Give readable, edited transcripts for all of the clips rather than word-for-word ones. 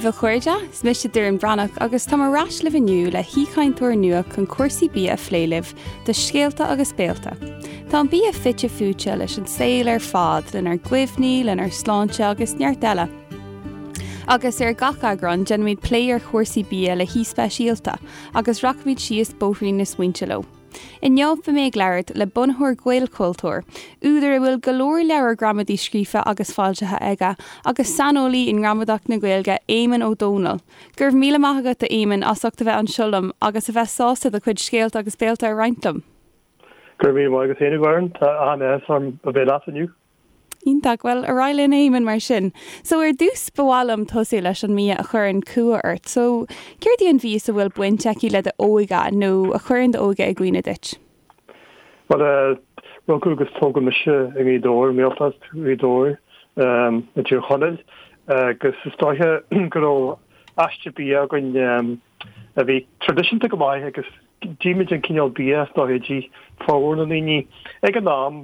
daoibh a chairde, is mise Doireann Bhreathnach agus táim ar ais libh inniu le haoichainteoir nua chun cúrsaí bia a phlé libh do Scéalta agus Béalta. Tá an bia fite fuaite leis an saol ar fad, lenár gcuimhní, lenár sláinte agus neart eile. Agus ar gach eagrán, déanfaimid plé ar chúrsaí bia le haoi speisialta agus rachaimid síos bóithrín na smaointe leo. Inniu beidh mé ag labhairt le bunaitheoir Ghaelchultúir, údar a bhfuil go leor leabhar gramadaí scríofa agus foilsithe aige, agus saineolaí i ngramadach na Gaeilge, Éamonn Ó Dónaill. Go raibh míle maith agat, a Éamoinn, as ucht a bheith anseo liom agus a bheith sásta do chuid scéalta agus béalta a roinnt liom. Go raibh míle maith agat féin, a Dhoireann. Tá an-áthas orm a bheith leat inniu. Iontach. Bhuel, ar aghaidh linn, a Éamoinn, mar sin. So, ar dtús, ba mhaith liom tosú leis an mbia a chuireann cumha ort. So, céard í an mhias a bhfuil baint aici le d'óige nó a chuireann d'óige i gcuimhne duit? Bhuel, rugadh agus tógadh mise i nGaoth Dobhair, i nGaeltacht Ghaoth Dobhair, i dTír Chonaill, agus is dóiche go raibh aiste bia againn a bhí traidisiúnta go maith agus D'ith muid an cineál bia is dóiche a d'ith formhór na ndaoine ag an am.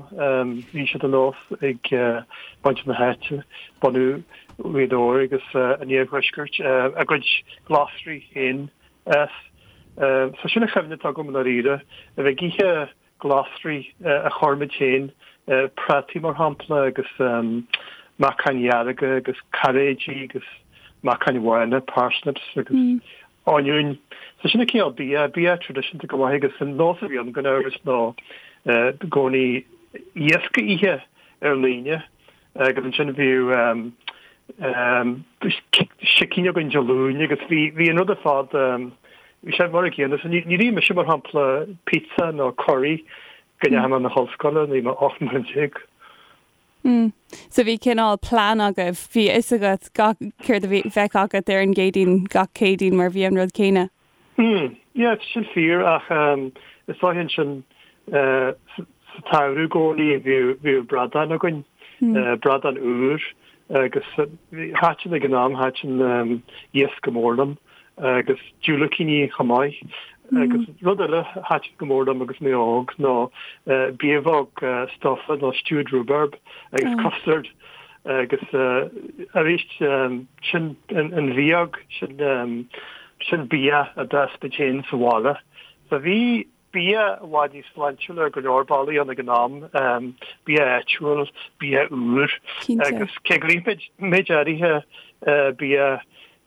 Bhí sé de nós ag muintir na háite, bunadh Ghaoth Dobhair agus an iarthuaiscirt, a gcuid glasraí féin a fhás. So sin an chuimhne atá agam i ndáiríre, a bheith ag ithe glasraí a chuir muid féin, prátaí mar shampla agus meacáin dhearga agus cairéidí agus meacáin bhána, parsnips agus oinniúin. So sin an cineál bia, bia traidisiúnta go maith agus an nós a bhí ann gan amhras ná i gcónaí iasc a ithe ar an Aoine agus ansin bhíodh sicín againn Dé Luain agus bhí bhí an rud ar fad bhí sé mar an gcéanna. So níor ith mise mar shampla pizza nó curry go ndeachaigh mé chun na hollscoile nuair a bhí mé 18 mbliana. Mm. So bhí cineál plean agaibh, bhí a fhios agat gach céard a bhí bheadh agat ar an gCéadaoin gach Céadaoin mar bhí an rud céanna. Mm. Yeah, sin fíor ach um, is dóiche ansin uh, sa tsamhradh i gcónaí bhíodh bhíodh bradán againn, mm. uh, bradán úr agus thaitin ag an am thaitin um, iasc go mór liom agus diúilicíní chomh maith. Agus rud eile a thaitin go mór liom agus mé óg ná biabhóg stufa nó stewed rhubarb agus custard agus arís sin an bhióg, sin sin bia a d'fhás muid féin sa bhaile. So bhí bia i bhfad níos sláintiúla ar go leor bealaí ann ag an am, bia áitiúil, bia úr agus cé gur ith muid méid áirithe bia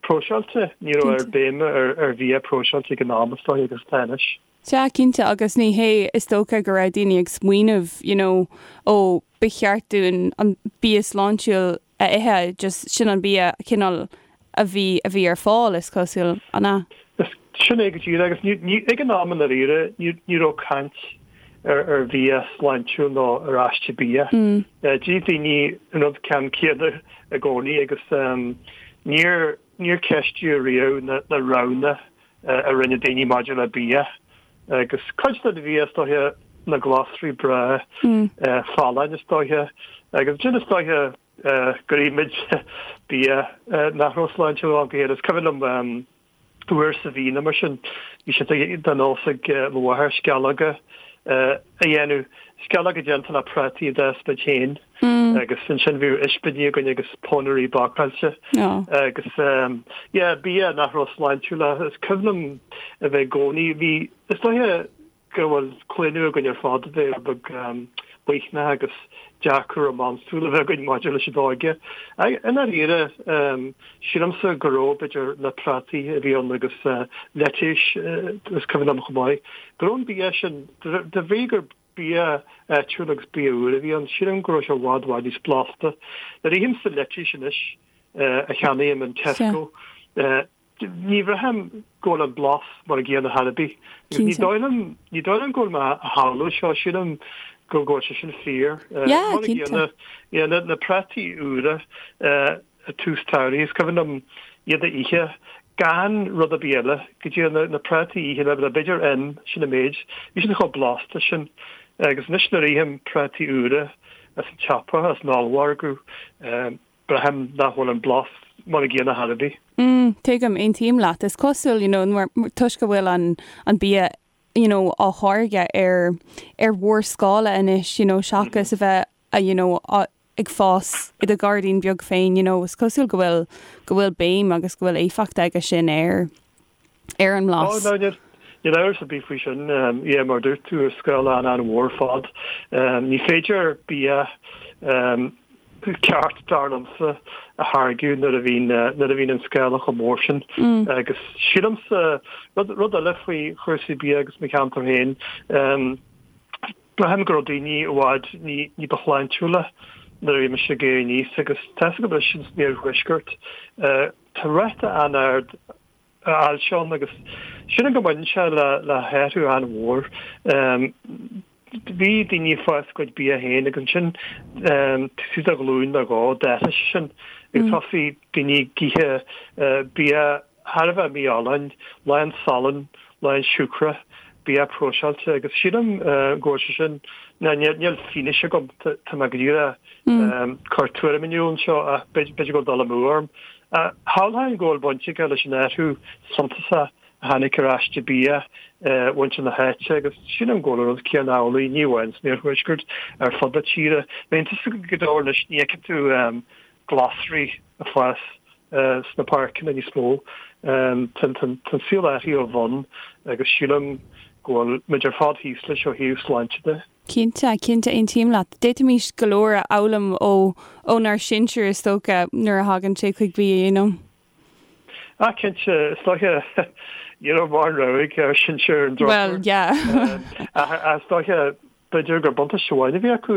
próiseáilte, ní raibh aon bhéim ar bhia próiseáilte ag an am is dóigh agus atá anois. Sea, cinnte, agus ní hé is dócha go raibh daoine ag smaoineamh, you know, ó ba cheart dúinn an bia sláintiúil a ithe, just sin an bia cineál a bhí, a bhí ar fáil, is cosúil, an ea? Sin é go díreach, agus ní, ní, ag an am i ndáiríre, ní, ní raibh caint ar, ar bhia sláintiúil nó ar aiste bia. D'ith daoine an rud ceann céanna i gcónaí agus níor, níor ceistíodh riamh na, na roghanna a rinne daoine maidir le bia. Agus cuid den bhia is dóiche na glasraí breá folláin is dóiche agus ansin is dóiche gur ith muid bia nach raibh sláintiúil ó am go chéile. Is cuimhin liom uair sa mhí nó mar sin bhí sé de nós ag mo mháthair sceallóga a dhéanamh, sceallóga déanta le prátaí a d'fhás muid féin. Agus ansin bhíodh ispíní againn agus pónairí bácáilte agus yeah bia nach raibh sláintiúil ach is cuimhin liom a bheith i gcónaí, bhí, is dóiche go bhfuil claonadh againn ar fad a bheith rud beag maoithneach agus dearcadh rómánsúil a bheith againn maidir leis an óige. I ndáiríre sílimse go raibh b'fhéidir na prátaí a bhí ann agus leitéis is cuimhin liom chomh maith go raibh an bia sin de bhrí gur bia áitiúil agus bia úr a bhí ann. Sílim go raibh sé i bhfad, bhfad níos blasta. Nuair a ithimse leitéis anois a cheannaím in Tesco, ní bhraithim go bhfuil an blas mar an gcéanna chor ar bith. Ní dóigh liom, ní dóigh liom go bhfuil mé á shamhlú seo, sílim go bhfuil sé sin fíor. Mar an gcéanna, na prátaí úra, ag tús tsamhraidh. Is cuimhin liom iad a ithe gan rud ar bith eile, go dtí na prátaí a ithe le b'fhéidir im, sin an méid. Bhí siad chomh blasta sin. Agus anois nuair a ithim prátaí úra as an tsiopa, as an ollmhargadh, braithim nach bhfuil an blas mar an gcéanna chor ar bith. Mm, tuigim, aontaím leat. Is cosúil, you know, toisc go bhfuil an an bia you know, á tháirgeadh ar ar mhórscála anois, you know, seachas a bheith, you know, á. ag fás i do ghairdín beag féin, you know, is cosúil go bhfuil, go bhfuil béim agus go bhfuil éifeacht aige sin ar, ar an mblas. Oh, no, níl amhras ar bith faoi sin. Yeah, mar a dúirt tú, ar scála an-an-mhór ar fad. Ní féidir bia ceart, dar liomsa, a tháirgeadh nuair a bhíonn, nuair a bhíonn an scála chomh mór sin. Agus sílimse, rud, rud eile faoi chúrsaí bia agus mo cheantar féin, braithim go raibh daoine i bhfad ní, ní ba shláintiúla nuair a bhí mise ag éirí aníos agus tá 'fhios agam anois san iarthuaisceart, tá ráta an-ard ailse ann agus sílim go mbaineann sé le, le hathrú an-mhór. Bhí daoine ag fás a gcuid bia féin agus ansin taobh istigh de ghlúin nó dhó d'athraigh sé sin agus thosaigh daoine ag ithe bia thar a bheith mífholláin, lán salainn, lán siúcra, bia próiseáilte agus sílim go bhfuil sé sin, ná níl fianaise agam, tá mé go díreach ag cur tuairim in iúl anseo ach b'fhéidir go bhfuil dul amú orm. Shamhlóinn go bhfuil baint aige leis an athrú suntasach a tháinig ar aiste bia mhuintir na háite agus sílim go bhfuil an rud céanna amhlaidh, ní amháin san iarthuaisceart, ar fud na tíre. Bíonn tusa go leor anois, ní fheiceann tú glasraí ag fás sna páirceanna níos mó. Tá an saol athraithe ó bhonn agus sílim go bhfuil muid ar fad thíos leis ó thaobh sláinte de. Cinnte, cinnte, aontaím leat. D'fhéadfaimis go leor a fhoghlaim ó ónár sinsir is dócha nuair a thagann sé chuig bia, you know. Ah, cinnte, is dóiche, ní raibh mórán rogha ag ár sinsir ar an drochuair. Well, yeah. Ach is dóiche, b'fhéidir gur buntáiste amháin a bhí acu,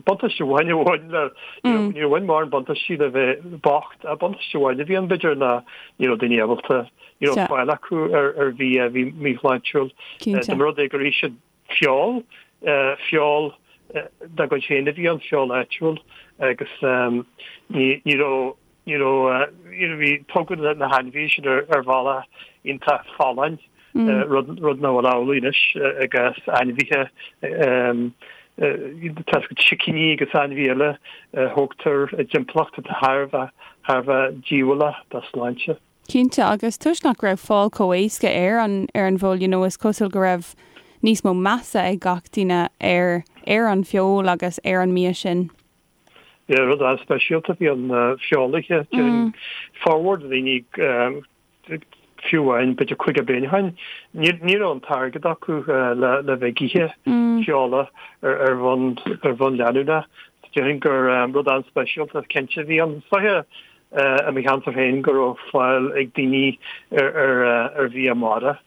buntáiste amháin a bhain le, níor bhain mórán buntáistí le bheith bocht, ach buntáiste amháin a bhí ann b'fhéidir ná ní raibh daoine ábalta, ní raibh fáil acu ar bhia a bhí míshláintiúil. Dá mba rud é gur ith siad feoil, feoil dá gcuid féin a bhí ann, feoil áitiúil agus ní raibh, Ní raibh, you know, bhí, tógadh na hainmhithe sin ar ar bhealach iontach folláin, rud, rud nach bhfuil amhlaidh anois i gcás ainmhithe, tá 'fhios agat sicíní agus ainmhithe eile a thógtar i dtimpeallacht atá thar a bheith, thar a bheith díobhálach dá sláinte. Cinnte, agus toisc nach raibh fáil chomh éasca ar an, ar an bhfeoil, you know, is cosúil go raibh níos mó measa ag gach duine ar, ar an bhfeoil agus ar an mbia sin. Yeah, rud an-speisialta a bhí ann feoil a ithe. Déarfainn formhór de dhaoine fiú amháin b'fhéidir 50 bliain ó shin, ní raibh an t-airgead acu le le bheith ag ithe feola ar bhonn ar bhonn leanúnach. Déarfainn gur rud an-speisialta cinnte a bhí ann. Is dóiche i mo cheantar féin go raibh fáil ag daoine ar ar bhia mara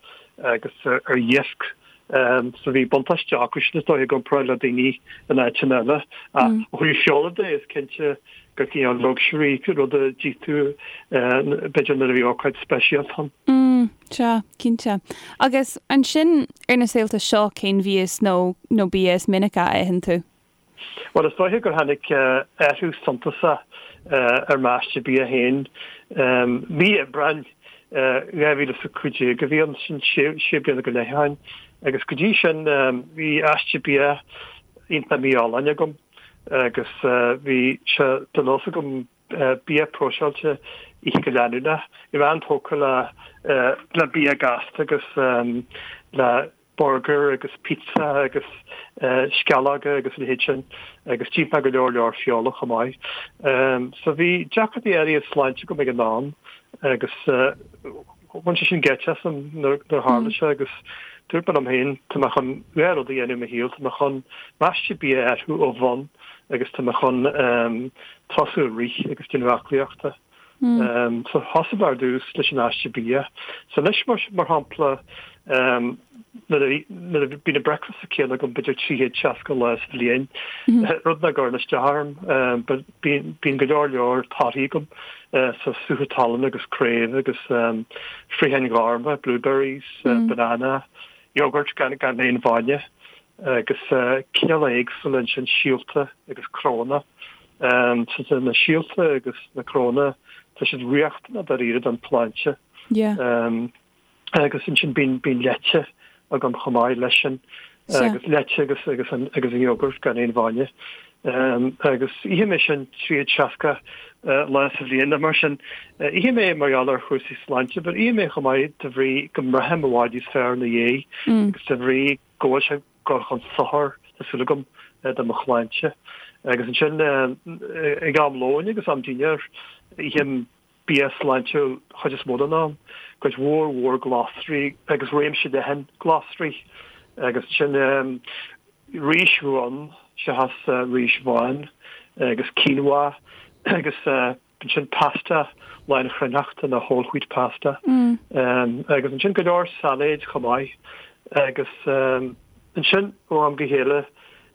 agus ar iasc So bhí buntáiste acu sin is dóigh i gcomparáid le daoine in áiteanna eile. Ach ó thaobh feola de is cinnte gur cineál luxury rud a d'ith tú b'fhéidir nuair a bhí ócáid speisialta ann. Mm, sea, cinnte. Agus ansin ar na saolta seo cén mhias nó nó bia is minice a itheann tú? Bhuel, is dóiche gur tháinig athrú suntasach ar m'aiste bia féin. Mí Aibreáin 2015 a bhí ann, sin sé bliana go leith ó shin, agus go dtí sin bhí aiste bia iontach mífholláin agam agus bhí sé de nós agam bia próiseáilte a ithe go leanúnach. Bhí mé an-tógtha le bia gasta agus le burgar agus pizza agus sceallóga agus a leithéid sin agus d'ith mé go leor leor feola chomh maith. So bhí deacrachtaí áirithe sláinte agam ag an am agus bhain sé sin geit asam nuair a tharla sé agus dúirt mé liom féin tá mé chun dhá rud a dhéanamh i mo shaol, tá mé chun m'aiste bia a athrú ó bhonn agus tá mé chun tosú ag rith agus déanamh aclaíochta. So thosaigh mé ar dtús leis an aiste bia. So anois mar mar shampla nuair a nuair a bíonn an bricfeasta céanna agam b'fhéidir 360 lá sa bhliain, rud nach gcuireann isteach orm, but bíonn bíonn go leor leor torthaí agam, so sútha talún agus craobh agus fraocháin ghorma, blueberries, banana, yogurt gan gan aon bhainne agus cineálacha éagsúla ansin síolta agus cnónna. So na síolta agus na cnónna, tá siad riachtanach dáiríre don tsláinte. Agus ansin bíonn bíonn leite agam chomh maith leis sin agus leite agus agus an agus an yogurt gan aon bhainne. Agus ithim é sin 360 lá sa bhliain nó mar sin. Ithim é mar gheall ar chúrsaí sláinte, but ithim é chomh maith de bhrí go mbraithim i bhfad níos fearr ina dhiaidh agus de bhrí go bhfuil sé ag dul chun sochair, tá súil agam, do mo shláinte. Agus ansin ag am lóin agus am dinnéir, ithim bia sláintiúil chuid is mó den am, cuid mhór mhór glasraí agus réimse leathan glasraí. Agus ansin rís dhonn seachas rís bhán agus quinoa agus ansin pasta lánchruithneachta nó whole wheat pasta. Agus ansin go leor sailéid chomh maith. Agus ansin ó am go chéile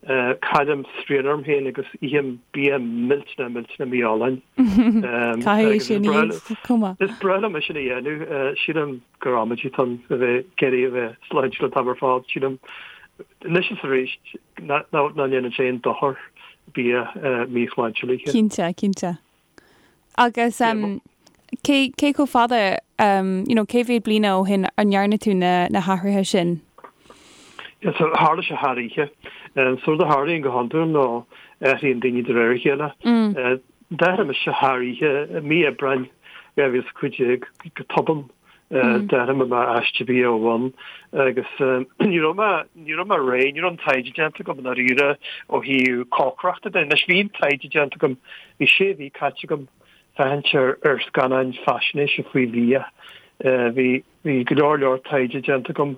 Caillim srian orm féin agus ithim bia millteanach millteanach mífholláin. Caithfidh é sin a dhéanamh chomh maith. Is breá liom é sin a dhéanamh. Sílim gur amaidí atá ann a bheith ag iarraidh a bheith sláintiúil an t-am ar fad. Sílim anois is arís nach ndéanann sé aon dochar bia míshláintiúil a ithe. Cinnte, cinnte. Agus cé cé chomh fada, you know, cé mhéad bliana ó shin a ndearna tú na na hathruithe sin? Yeah, so tharla sé thar oíche. So rud a tharlaíonn go hiondúil ná athraíonn daoine de réir a chéile. D'athraigh mise thar oíche, mí Aibreáin 2015 go tobann. D'athraigh mé m'aiste bia ó bhonn agus ní raibh mé, ní raibh mé réidh, ní raibh an taighde déanta agam i ndáiríre ó thaobh cócaireachta de. Anois bhí an taighde déanta agam, bhí sé mhí caite agam féachaint ar ar scannáin faisnéise faoi bhia. Bhí bhí go leor leor taighde déanta agam,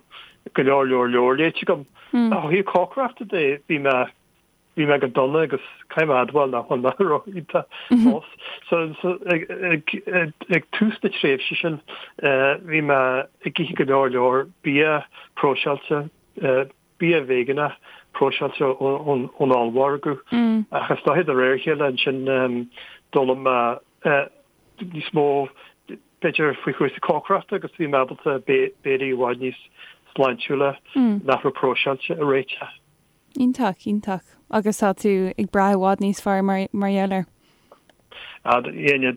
go leor leor leabhar léite agam. Ach ó thaobh cócaireachta de bhí mé Bhí mé go dona agus caithfidh mé a admháil nach bhfuil mé ró-iontach fós. So ag ag ag tús na tréimhse sin bhí mé ag ithe go leor leor bia próiseáilte, bia veigeánach próiseáilte ón ón ollmhargadh. Ach is dóiche de réir a chéile ansin d'fhoghlaim mé níos mó b'fhéidir faoi chúrsaí cócaireachta agus bhí mé ábalta béilí i bhfad níos sláintiúla nach raibh próiseáilte a réiteach. Iontach, iontach. Agus tá tú ag brath i bhfad níos fearr mar mar gheall air? Yeah,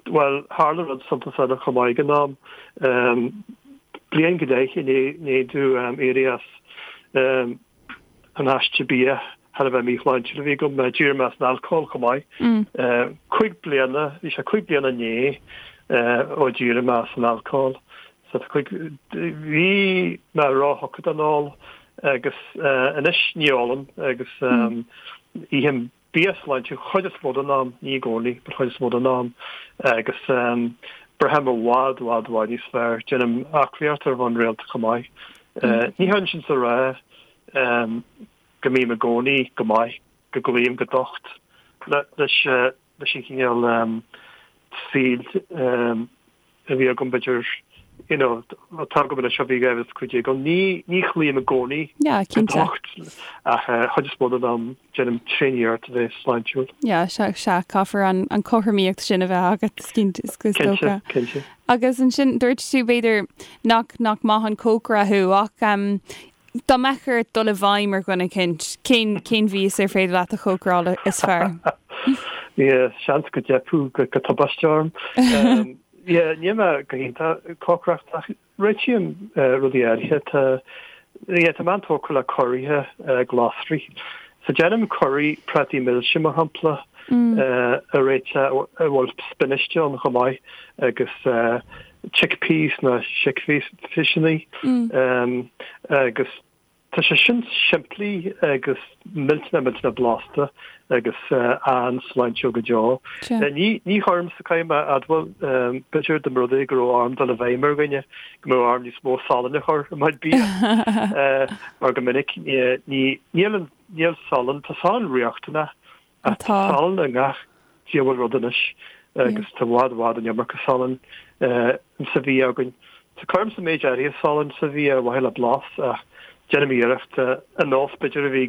bhuel, tharla rud suntasach eile chomh maith ag an am. Bliain go leith i ndiaidh domh éirí as an aiste bia thar a bheith míshláintiúil a bhí agam, d'éirigh mé as an alcól chomh maith. 5 bliana, bhí sé 5 bliana inné ó d'éirigh mé as an alcól. So tá cuid, bhí mé róthugtha don ól agus anois ní ólaim agus ithim bia sláintiúil chuid is mó den am, ní i gcónaí, but chuid is mó den am agus braithim i bhfad, bhfad, bhfad níos fearr. Déanaim aclaíocht ar bhonn rialta chomh maith. Ní hionann sin is a rá go mbím i gcónaí go maith, go gcloím go docht leis leis an chineál saoil a bhí agam b'fhéidir you know atá agam anois ó bhí 2015 ann. Ní ní chloím i gcónaí Yeah, go cinnte. docht ach chuid is mó den am déanaim tréaniarracht a bheith sláintiúil. Yeah, sea, sea, caithfear an an cothromaíocht sin a bheith agat, is cinnte, is is Cinnte, dócha. cinnte. Agus ansin dúirt tú b'fhéidir nach nach maith an cócaire thú ach um, Dá mbeadh ort dul i bhfeidhm ar dhuine eicínt, cén, cén mhias ar féidir leat a chócaráil is fearr? Yeah, seans go dteipfeadh go, go tubaiste orm. Um, yeah, níl mé go hiontach ag cócaireacht ach réitím uh, rudaí áirithe. Tá, yeah, tá mé an-tógtha le curaithe uh, glasraí. So déanaim curaí prátaí milse mar shampla uh, a réiteach a bhfuil spinach ann chomh maith agus uh, chickpeas nó sicphiseanna agus tá sé sin simplí agus millteanach millteanach blasta agus an-sláintiúil go deo. Ní ní chuirimse caithfidh mé a admháil b'fhéidir dá mba rud é go raibh orm dul i bhfeidhm ar dhuine go mbeadh orm níos mó salainn a chur i mo chuid bia mar go minic ní níl an níl salann tá salann riachtanach Ach tá salann i ngach diabhal rud anois agus tá i bhfad i bhfad an iomarca salainn sa bhia againn. So cuirimse méid áirithe salainn sa bhia ar mhaithe le blas ach déanaim iarracht an nós b'fhéidir a bhí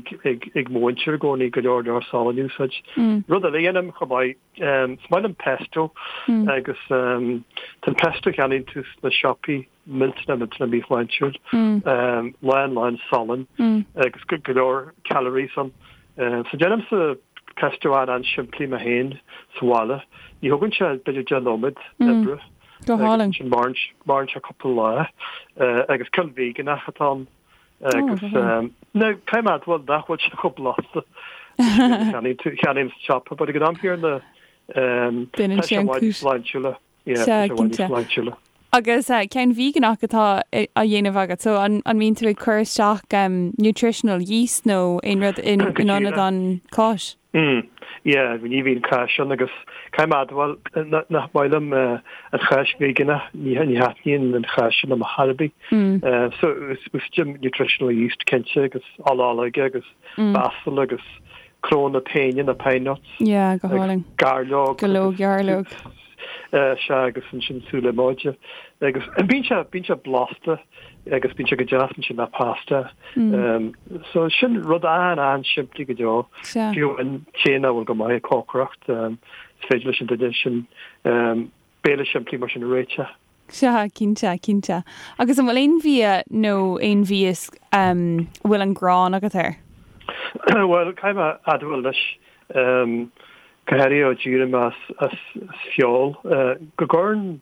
ag mo mhuintir i gcónaí go leor leor salainn a úsáid. Rud eile a dhéanaim chomh maith, is maith liom pesto agus tá an pesto a cheannaíonn tú sna siopaí millteanach millteanach míshláintiúil, lán lán salainn agus go leor calories ann. So déanaimse pesto an-an-simplí mé féin sa bhaile. Ní thógann sé b'fhéidir 10 nóiméad oibre. Go hálainn. Sin maireann sé cúpla lá agus ceann veigeánach atá ann agus now caithfidh mé a admháil nach bhfuil sé chomh blasta cheannaím sa siopa, but ag an am céanna tá sé i bhfad níos sláintiúla. Sea, cinnte. Agus ceann veigeánach atá á dhéanamh agat, so an mbíonn tú ag cur isteach nutritional yeast nó aon rud in ionad an cáis? Mm, yeah, ní bhíonn cáis ann agus caithfidh mé a admháil nach maith liom an cháis veigeánach, ní thaitníonn an cháis sin liom ar chor ar bith. So úsáidim nutritional yeast cinnte agus ola olóige agus basil agus cnónna péine na pine nuts. Yeah, go hálainn. Gairleog. Go leor gairleog. Sea, agus ansin sú liomóide. Agus bíonn sé, bíonn sé blasta agus bíonn sé go deas ansin le pasta. So sin rud an-an-simplí go deo. Sea. Fiú an té nach bhfuil go maith ag cócaireacht, is féidir leis an duine sin béile simplí mar sin a réiteach. Sea, cinnte, cinnte. Agus an bhfuil aon bhia nó aon mhias a bhfuil an ghráin agat air? Bhuel, caithfidh mé a admháil anois, go háirithe ó d'éirigh mé as feoil, go gcuireann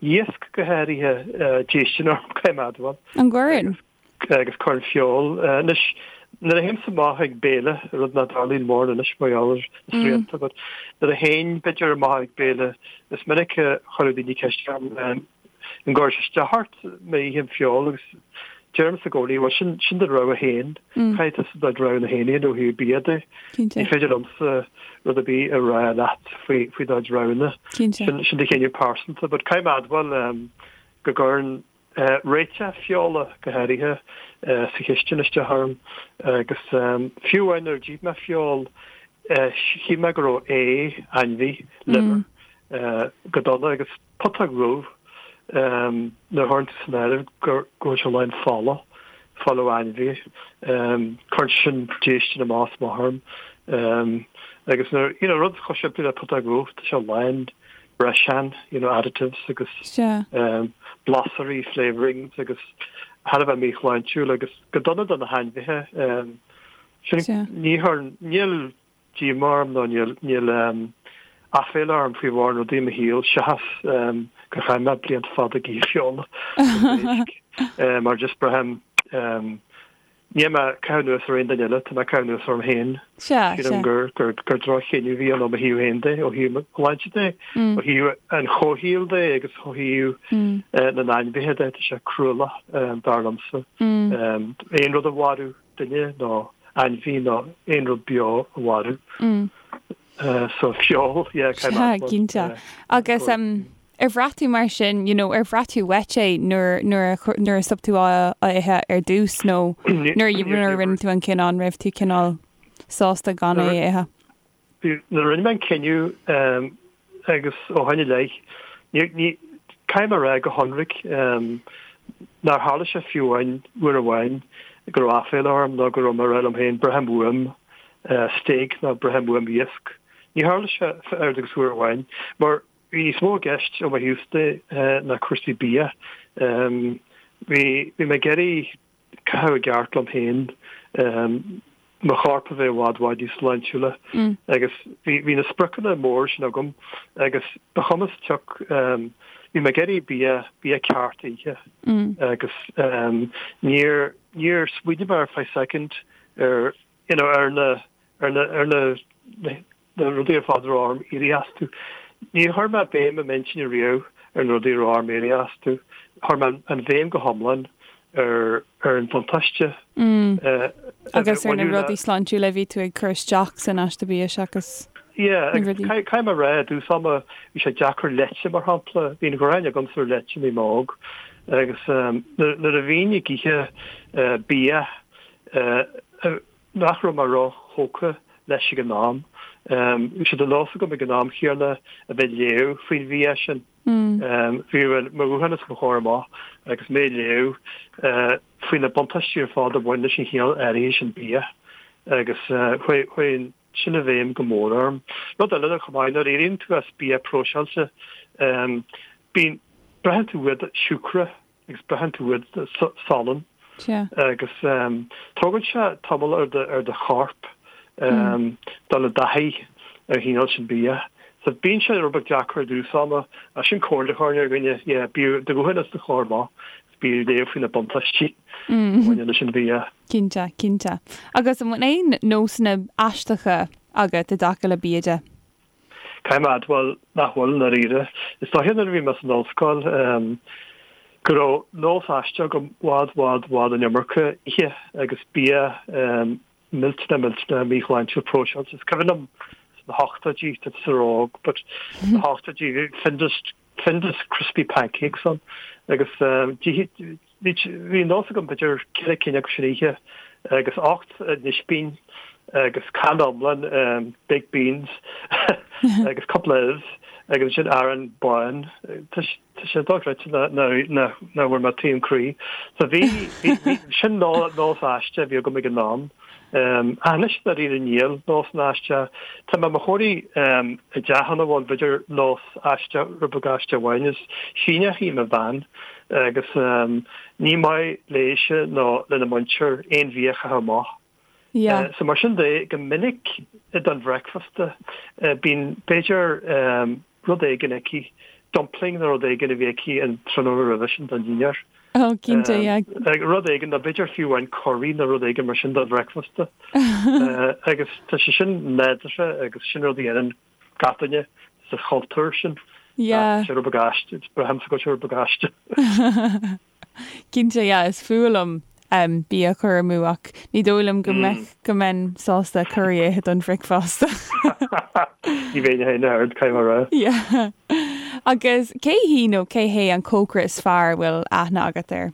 iasc go háirithe déistin orm, caithfidh mé a admháil. An gcuireann? agus cuireann feoil. Anois, nuair a théimse amach ag béile, rud nach dtarlaíonn mórán anois mar gheall ar na srianta, but nuair a théinn, b'fhéidir, amach ag béile, is minic a chuireadh daoine ceist orm, an gcuireann sé isteach ort má ithim feoil agus deirimse i gcónaí, bhuel, sin, sin do rogha féin, caithfidh tusa do roghanna féin a dhéanamh ó thaobh bia de. Ní féidir liomsa rud ar bith a rá leat faoi, faoi do chuid roghanna. Sin, sin do chinneadh pearsanta, but caithfidh mé a admháil go gcuireann Réiteach feola, go háirithe, sa chistin isteach orm agus fiú amháin nuair a d'ith mé feoil, shíl mé go raibh ae ainmhí, liver, go dona agus putóg dhubh nuair a chuireann tú san áireamh go bhfuil sé lán fola, fola ó ainmhí, cuireann sé sin déistin amach is amach orm agus nuair, you know, rud chomh simplí le putóg dhubh, tá sé lán breiseáin, you know, additives agus blasairí, flavourings agus thar a bheith míshláintiúil agus go dona do na hainmhithe. Sin, ní chuireann, níl díomá orm nó níl, níl aiféala orm faoi mhórán rudaí i mo shaol seachas gur chaith mé blianta fada ag ithe feola agus éisc mar just braithim Níl mé ag caitheamh anuas ar aon duine eile, tá mé ag caitheamh anuas orm féin. Sea, sea. Sílim gur, gur, gur droch-chinneadh a bhí ann ó mo thaobh féin de, ó thaobh mo shláinte de, ó thaobh an chomhshaoil de agus ó thaobh na n-ainmhithe de, tá sé cruálach, dar liomsa. Aon rud a mharú, duine nó ainmhí nó aon rud beo a mharú. So feoil, yeah, Sea, cinnte. Agus ar bhraith tú mar sin, you know, ar bhraith tú uait é nuair, nuair a, nuair a stop tú á ithe ar dtús nó nuair a, nuair a rinne tú an cinneadh, an raibh tú cineál sásta gan é a ithe? Nuair a rinne mé an cinneadh agus ó shin i leith, ní, ní, caithfidh mé a rá go hionraic nár tharla sé fiú amháin uair amháin go raibh aiféala orm nó go raibh mé ag rá liom féin braithim uaim stéig nó braithim uaim iasc. Ní tharla sé oiread agus uair amháin, mar bhí níos mó i gceist ó mo thaobh de ná cúrsaí bia. Bhí bhí mé ag iarraidh caitheamh i gceart liom féin, mo chorp a bheith i bhfad bhfad níos sláintiúla agus bhí bhí na spriocanna móra sin agam agus ba chuma sa tsioc bhí mé ag iarraidh bia bia ceart a ithe agus níor níor smaoinigh mé ar feadh soicind ar you know, ar na, ar na, ar na, na rudaí ar fad a raibh orm éirí astu. Níor chuir mé béim i m'intinn ariamh ar na rudaí a raibh orm éirí astu. Chuir mé an bhéim go hiomlán ar, ar an bhuntáiste. Mm. Agus ar na rudaí sláintiúla a bhí tú ag cur isteach san aiste bia seachas Yeah, agus caithfidh mé a rá, i dtús ama, bhí sé deacair leite, mar shampla. Bhí an ghráin agamsa ar leite nuair a bhí mé óg. Agus nuair a bhínn ag ithe bia, nach raibh mé ró-thógtha leis ag an am. Bhí sé de nós agam ag an am chéanna a bheith ag léamh faoin bhia sin. Bhí mo ghuthán os mo chomhair amach agus mé ag léamh faoi na buntáistí ar fad a bhain leis an chineál áirithe sin bia agus chuaigh sin i bhfeidhm go mór orm. Rud eile chomh maith, nuair a éiríonn tú as bia próiseáilte, bíonn, braitheann tú uait siúcra agus braitheann tú uait salann agus tógann sé tamall ar do ar do chorp dul i dtaithí ar an chineál sin bia. So bíonn sé rud beag deacair i dtús ama ach sin comhairle a chuirfinn ar dhuine, yeah, bíodh do ghuthán os do chomhair amach agus bí ag léamh faoi na buntáistí a bhaineann leis an bhia. Cinnte, cinnte. Agus an bhfuil aon nósanna aisteacha agat i dtaca le bia de? Caithfidh mé a admháil nach bhfuil, i ndáiríre. Is dóiche nuair a bhí mé san ollscoil go raibh nós aisteach agam i bhfad, bhfad, bhfad an iomarca a ithe agus bia. millteanach millteanach míshláintiúil próiseáilte. Is cuimhin liom sna hochtóidí, tá tusa ró-óg, but sna hochtóidí bhí Findus, Findus Crispy Pancakes ann agus bhí bhí nós agam b'fhéidir ceithre cinn acu san oíche agus 8 n-ispín agus canna iomlán baked beans agus cúpla ubh agus ansin arán bán. Tá sé dochreidte nach bhfuair mé taom croí. So bhí, bhí, sin nós aisteach a bhí agam ag an am. Ach anois dáiríre níl nósanna aisteacha. Tá mé i mo chónaí i dteach ina bhfuil b'fhéidir nós aisteach, rud beag aisteach amháin. Is Síneach í mo bhean agus ní maith léise nó lena muintir aon bhia a chaitheamh amach. Yeah. So mar sin de, go minic don bhreicfeasta bíonn b'fhéidir rud éigin aici, dumpling nó rud éigin a bhí aici an tráthnóna roimhe sin don dinnéar. Oh, cinnte, yeah. Rud éigin, nó b'fhéidir fiú amháin curry nó rud éigin mar sin don bhreicfeasta. Agus tá sé sin nádúrtha agus sin rud a dhéanann gach duine sa chultúr sin. Yeah. Tá sé rud beag aisteach, braithimse go bhfuil sé rud beag aisteach. Cinnte, yeah, is fuath liom bia a chur amú ach ní dóigh liom go mbeadh, go mbeinn sásta curry a ithe don bhricfeasta. Ní bheinn féin ach oiread, caithfidh mé a rá. Yeah. Agus cé hí nó cé hé an cócaire is fearr a bhfuil aithne agat air?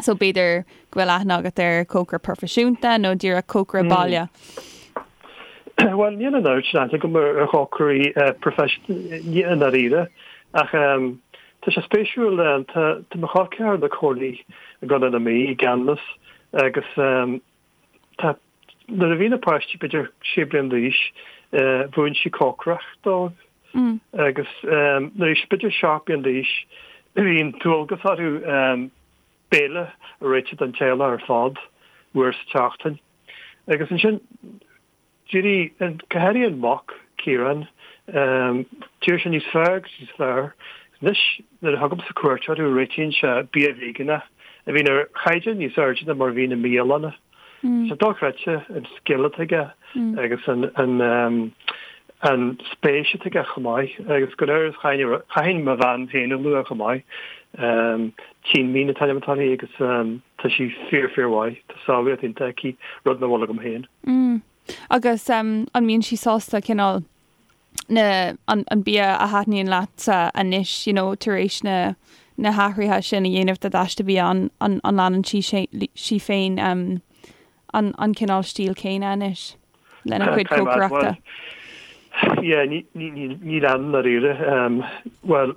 So b'fhéidir go bhfuil aithne agat ar cócaire proifisiúnta nó díreach cócaire baile? Bhuel, níl an oiread sin aithne agam ar chócairí proifisiúnta i ndáiríre ach Tá sé spéisiúil, tá mo chol ceathar ina cónaí i gContae na Mí, i gCeanannas, agus tá, nuair a bhí na páistí b'fhéidir sé bliana d'aois, mhúin sí cócaireacht dóibh. Agus nuair a bhí siad b'fhéidir 7 bliana d'aois, bhí an dualgas orthu béile a réiteach don teaghlach ar fad, uair sa tseachtain. Agus ansin, D'éirigh, go háirithe an mac, Ciarán, d'éirigh sé níos fearr agus níos fearr. Anois, nuair a thugaimse cuairt orthu, réitíonn sé bia veigeánach, a bhíonn ar chaighdeán níos airde ná mar a bhíonn i mbialanna. Tá sé dochreidte an scil atá aige agus an an spéis atá aige chomh maith. Agus go léir, chaithfinn mo bhean féin a lua chomh maith. Tine Mín an t-ainm atá uirthi agus tá sí fíor fíor mhaith. Tá samhlaíocht iontach aici, rud nach bhfuil agam féin. Mm. Agus an mbíonn sí sásta cineál na, an, an bia a thaitníonn leatsa anois, you know, tar éis na, na hathruithe sin a dhéanamh do d'aiste bia, an, an, an leanann sí, sí féin um, an, an cineál stíl céanna anois lena cuid cócaireachta? Yeah, ní, ní, ní, ní leanann dáiríre. Um, bhuel,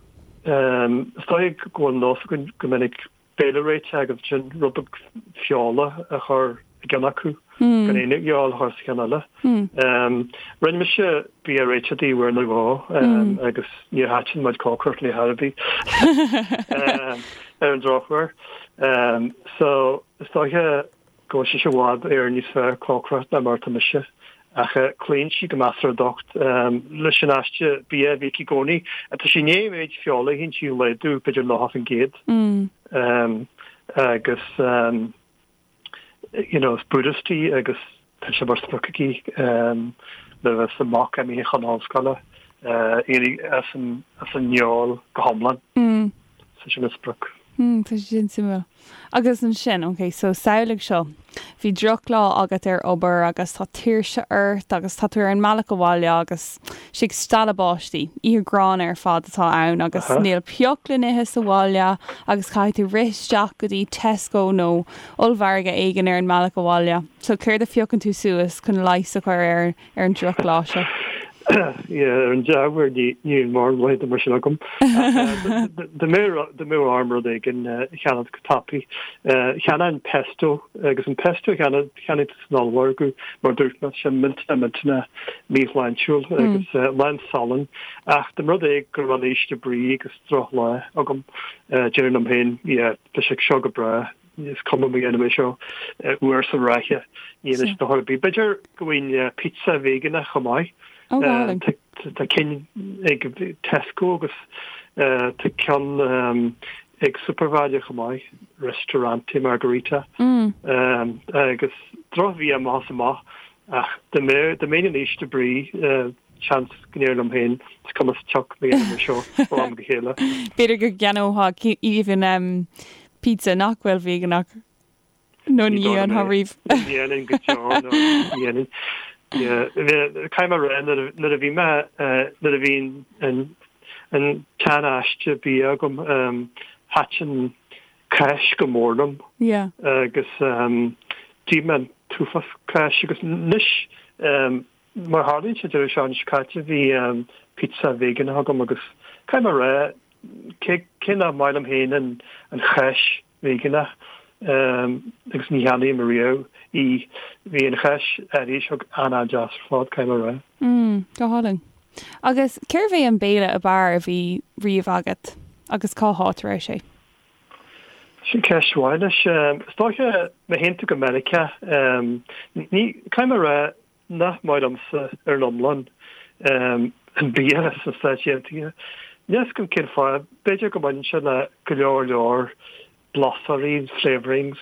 um, is dóigh go bhfuil nós againn go minic béile réitithe agus ansin rud beag feola a chur i gceann acu, gan aon fheoil a chur sa cheann eile. Rinne mise bia réitithe di uair nó dhó agus níor thaitin mo chuid cócaireacht léi ar chor ar bith ar an drochuair. So is dóiche go bhfuil sise i bhfad Éireann níos fearr cócaireacht ná mar atá mise. Ach cloíonn sí go measartha docht leis an aiste bia a bhí aici i gcónaí. Tá sí i ndiaidh an méid feola a itheann sí a laghdú b'fhéidir 90%. Agus you know is Buddhist í agus tá sé mar sprioc aici nuair a bheas a mac imithe chun ollscoile éirí as an fheoil go hiomlán. So sin a sprioc. Hmm, tá sé sin suimiúil. Agus ansin, ok, so samhlaigh seo, bhí drochlá agat ar obair agus tá tuirse ort agus tá tú ar an mbealach abhaile agus sé ag stealladh báistí, oíche ghránna ar fad atá ann agus níl pioc le n-ithe sa bhaile agus caithfidh tú rith isteach go dtí Tesco nó ollmhargadh éigin ar an mbealach abhaile. So céard a phiocann tú suas chun leigheas a chur ar ar an drochlá seo. Yeah, ar an dea-uair níl mórán laethanta mar sin agam. Dá mbeadh orm rud éigin a cheannacht go tapaidh, cheannóinn pesto agus an pesto a cheannaigh tú san ollmhargadh, mar a dúirt mé, tá sé millteanach millteanach míshláintiúil agus lán salainn. Ach dá mba rud é go raibh mé in ísle brí agus drochlá agam, déarfainn liom féin, yeah, tá sé seo go breá. Is cuma má dhéanaim é seo uair sa ráithe, ní dhéanann sé dochar ar bith. B'fhéidir go bhfaighinn pizza veigeánach chomh maith. Tá cinn ag Tesco agus tá ceann ag Supervalu chomh maith, Ristorante Margherita. Agus drochbhia amach is amach ach dá mbeinn in ísle brí, seans go ndéarfainn liom féin, is cuma sa tsioc má dhéanaim é seo ó am go chéile. B'fhéidir go gceannófá even pizza nach bhfuil veigeánach. Nó ní dhéanfá riamh. Ní dhéanfainn go deo nó ní dhéanfainn. Caithfidh mé a rá nuair a bhí mé nuair a bhí an an tsean-aiste bia agam thaitin cáis go mór liom agus d'ith mé an t-uafás cáis agus anois mar a tharlaíonn sé deireadh seachtaine seo caite bhí pizza veigeánach agam agus caithfidh mé a rá cé nach maith liom féin an cháis veigeánach agus ní cheannaím riamh í. Bhí an cháis áirithe seo an-an-deas ar fad, caithfidh mé a rá. Mm, go hálainn. Agus cérbh é an béile ab fhearr a bhí riamh agat agus cá háit a raibh sé? Sin ceist mhaith anois. Is dóiche, má théann tú go Meiriceá, ní, caithfidh mé a rá nach maith liomsa ar an iomlán an bia sna Stáit Aontaithe. Níl fhios agam cén fáth, b'fhéidir go mbaineann sé le go leor leor blasóirí, flavourings,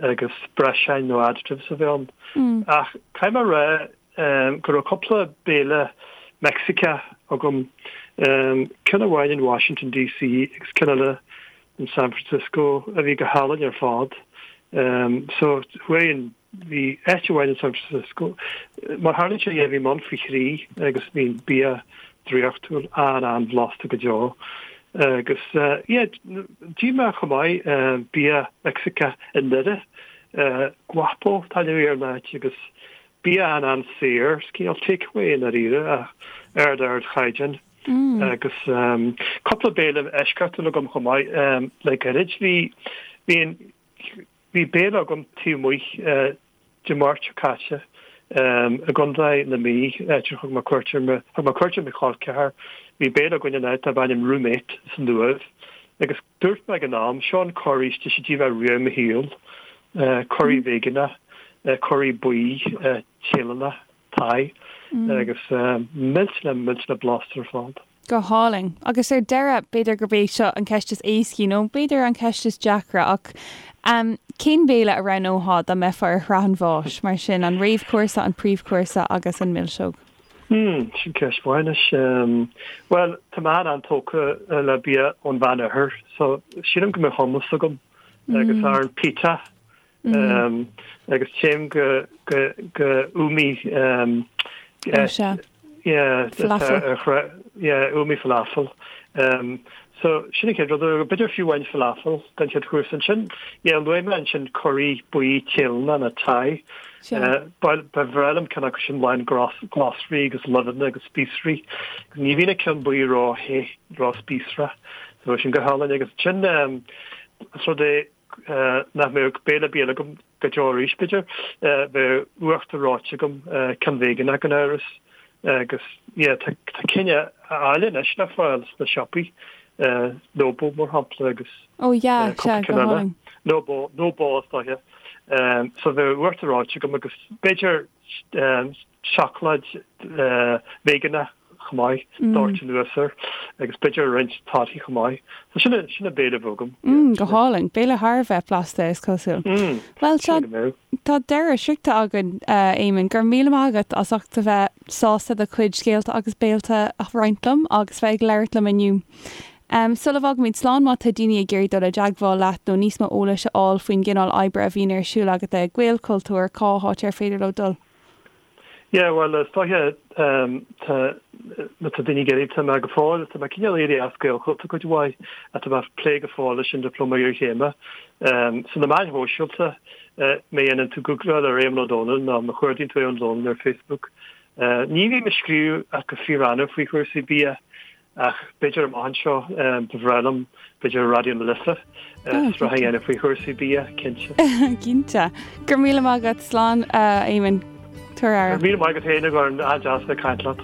agus breiseáin nó additives a bheith ann. Ach caithfidh mé a rá go raibh cúpla béile Meicsiceach agam, ceann amháin in Washington DC agus ceann eile in San Francisco a bhí go hálainn ar fad. So chuaigh an Bhí áit amháin in San Francisco, mar tharlaíonn sé, yeah, bhí mé ann faoi thrí agus bhí an bia draíochtúil, an-an-bhlasta go deo. Agus yeah, d'ith mé chomh maith bia Meicsiceach i nDoire, Guapo an t-ainm a bhí ar an áit agus bia an-an-saor, cineál takeaway i ndáiríre ach ard-ardchaighdeán. Agus cúpla béile eisceachtúil agam chomh maith le gairid. Bhí, bhí an, Bhí béile agam taobh amuigh Dé Máirt seo caite i gContae na Mí, áit ar thug mé cuairt ar mo, thug mé cuairt ar mo chol ceathar. Bhí béile againn in áit darb ainm Roommate san Uaimh agus dúirt mé ag an am, seo an curry is deise a d'ith mé riamh i mo shaol, curry veigeánach, curry buí Téalannach, Thai, agus millteanach millteanach blasta ar fad. Go hálainn. Agus ar deireadh, b'fhéidir gurb é seo an cheist is éascaí, nó b'fhéidir an cheist is deacra, ach cén béile a roghnófá dá mbeifeá ar shraith an bháis, mar sin, an réamhchúrsa, an príomhchúrsa agus an milseog? Hmm, sin ceist mhaith anois. Bhuel, tá mé an-an-tógtha le bia ón Mheánoirthear, so sílim go mbeadh hummus agam agus arán pita Agus téim go go Umi yeah falafel yeah Umi falafel. So sin an chéad rud, b'fhéidir fiú amháin falafel don chéad chúrsa ansin. Yeah luaigh mé ansin curry buí Téalannach nó Thai. Ba bhreá liom ceann acu sin lán glasraí agus luibheanna agus spíosraí. Ní bhíonn an ceann buí ró-the, ró-spíosrach. So sin go hálainn agus ansin is rud é nach mbeadh béile bia eile agam go deo arís, b'fhéidir. Bheadh uachtar reoite agam, ceann veigeánach gan amhras. Agus yeah, tá cinn áille anois le fáil sna siopaí, Nobo mar shampla agus Oh yeah, sea, go hálainn. Nobo, Nobo is dóiche. So bheadh uachtar reoite agam agus b'fhéidir seacláid veigeánach chomh maith, doirte anuas air, agus b'fhéidir roinnt torthaí chomh maith. So sin an, sin an béile a bheadh agam. Mm, go hálainn. Béile thar a bheith blasta, is cosúil. Mm, Bhuel, tá, go mbeadh. tá deireadh sroichte againn, a Éamonn. Go raibh míle maith agat as ucht a bheith sásta do chuid scéalta agus béilte a roinnt liom agus bheith ag labhairt liom inniu. Um, sula bhfágaimid slán, má tá daoine ag iarraidh dul i dteagmháil leat nó níos mó eolais a fháil faoin gcineál oibre a bhíonn ar siúl agat le Gaelchultúr, cá háit ar féidir leo dul? Yeah, bhuel, is dóiche, tá, má tá daoine ag iarraidh, tá mé go fóill, tá mé cineál éirithe as Gaelchultúr cuid mhaith, ach tá mé ag plé go fóill leis an Dioplóma Iarchéime. So na meáin shóisialta, má dhéanann tú Googláil ar Éamonn Ó Dónaill nó má chuardaíonn tú Éamonn Ó Dónaill ar Facebook, ní bhím ag scríobh ach go fíor-annamh faoi chúrsaí bia, Ach b'fhéidir amach anseo, ba bhreá liom, b'fhéidir ar Raidió na Life, sraith a dhéanamh faoi chúrsaí bia, cinnte. Cinnte. Go raibh míle maith agat. Slán, a Éamoinn. Tabhair aire. Go raibh míle maith agat féin, a Dhoireann. An-deas a bheith ag caint leat.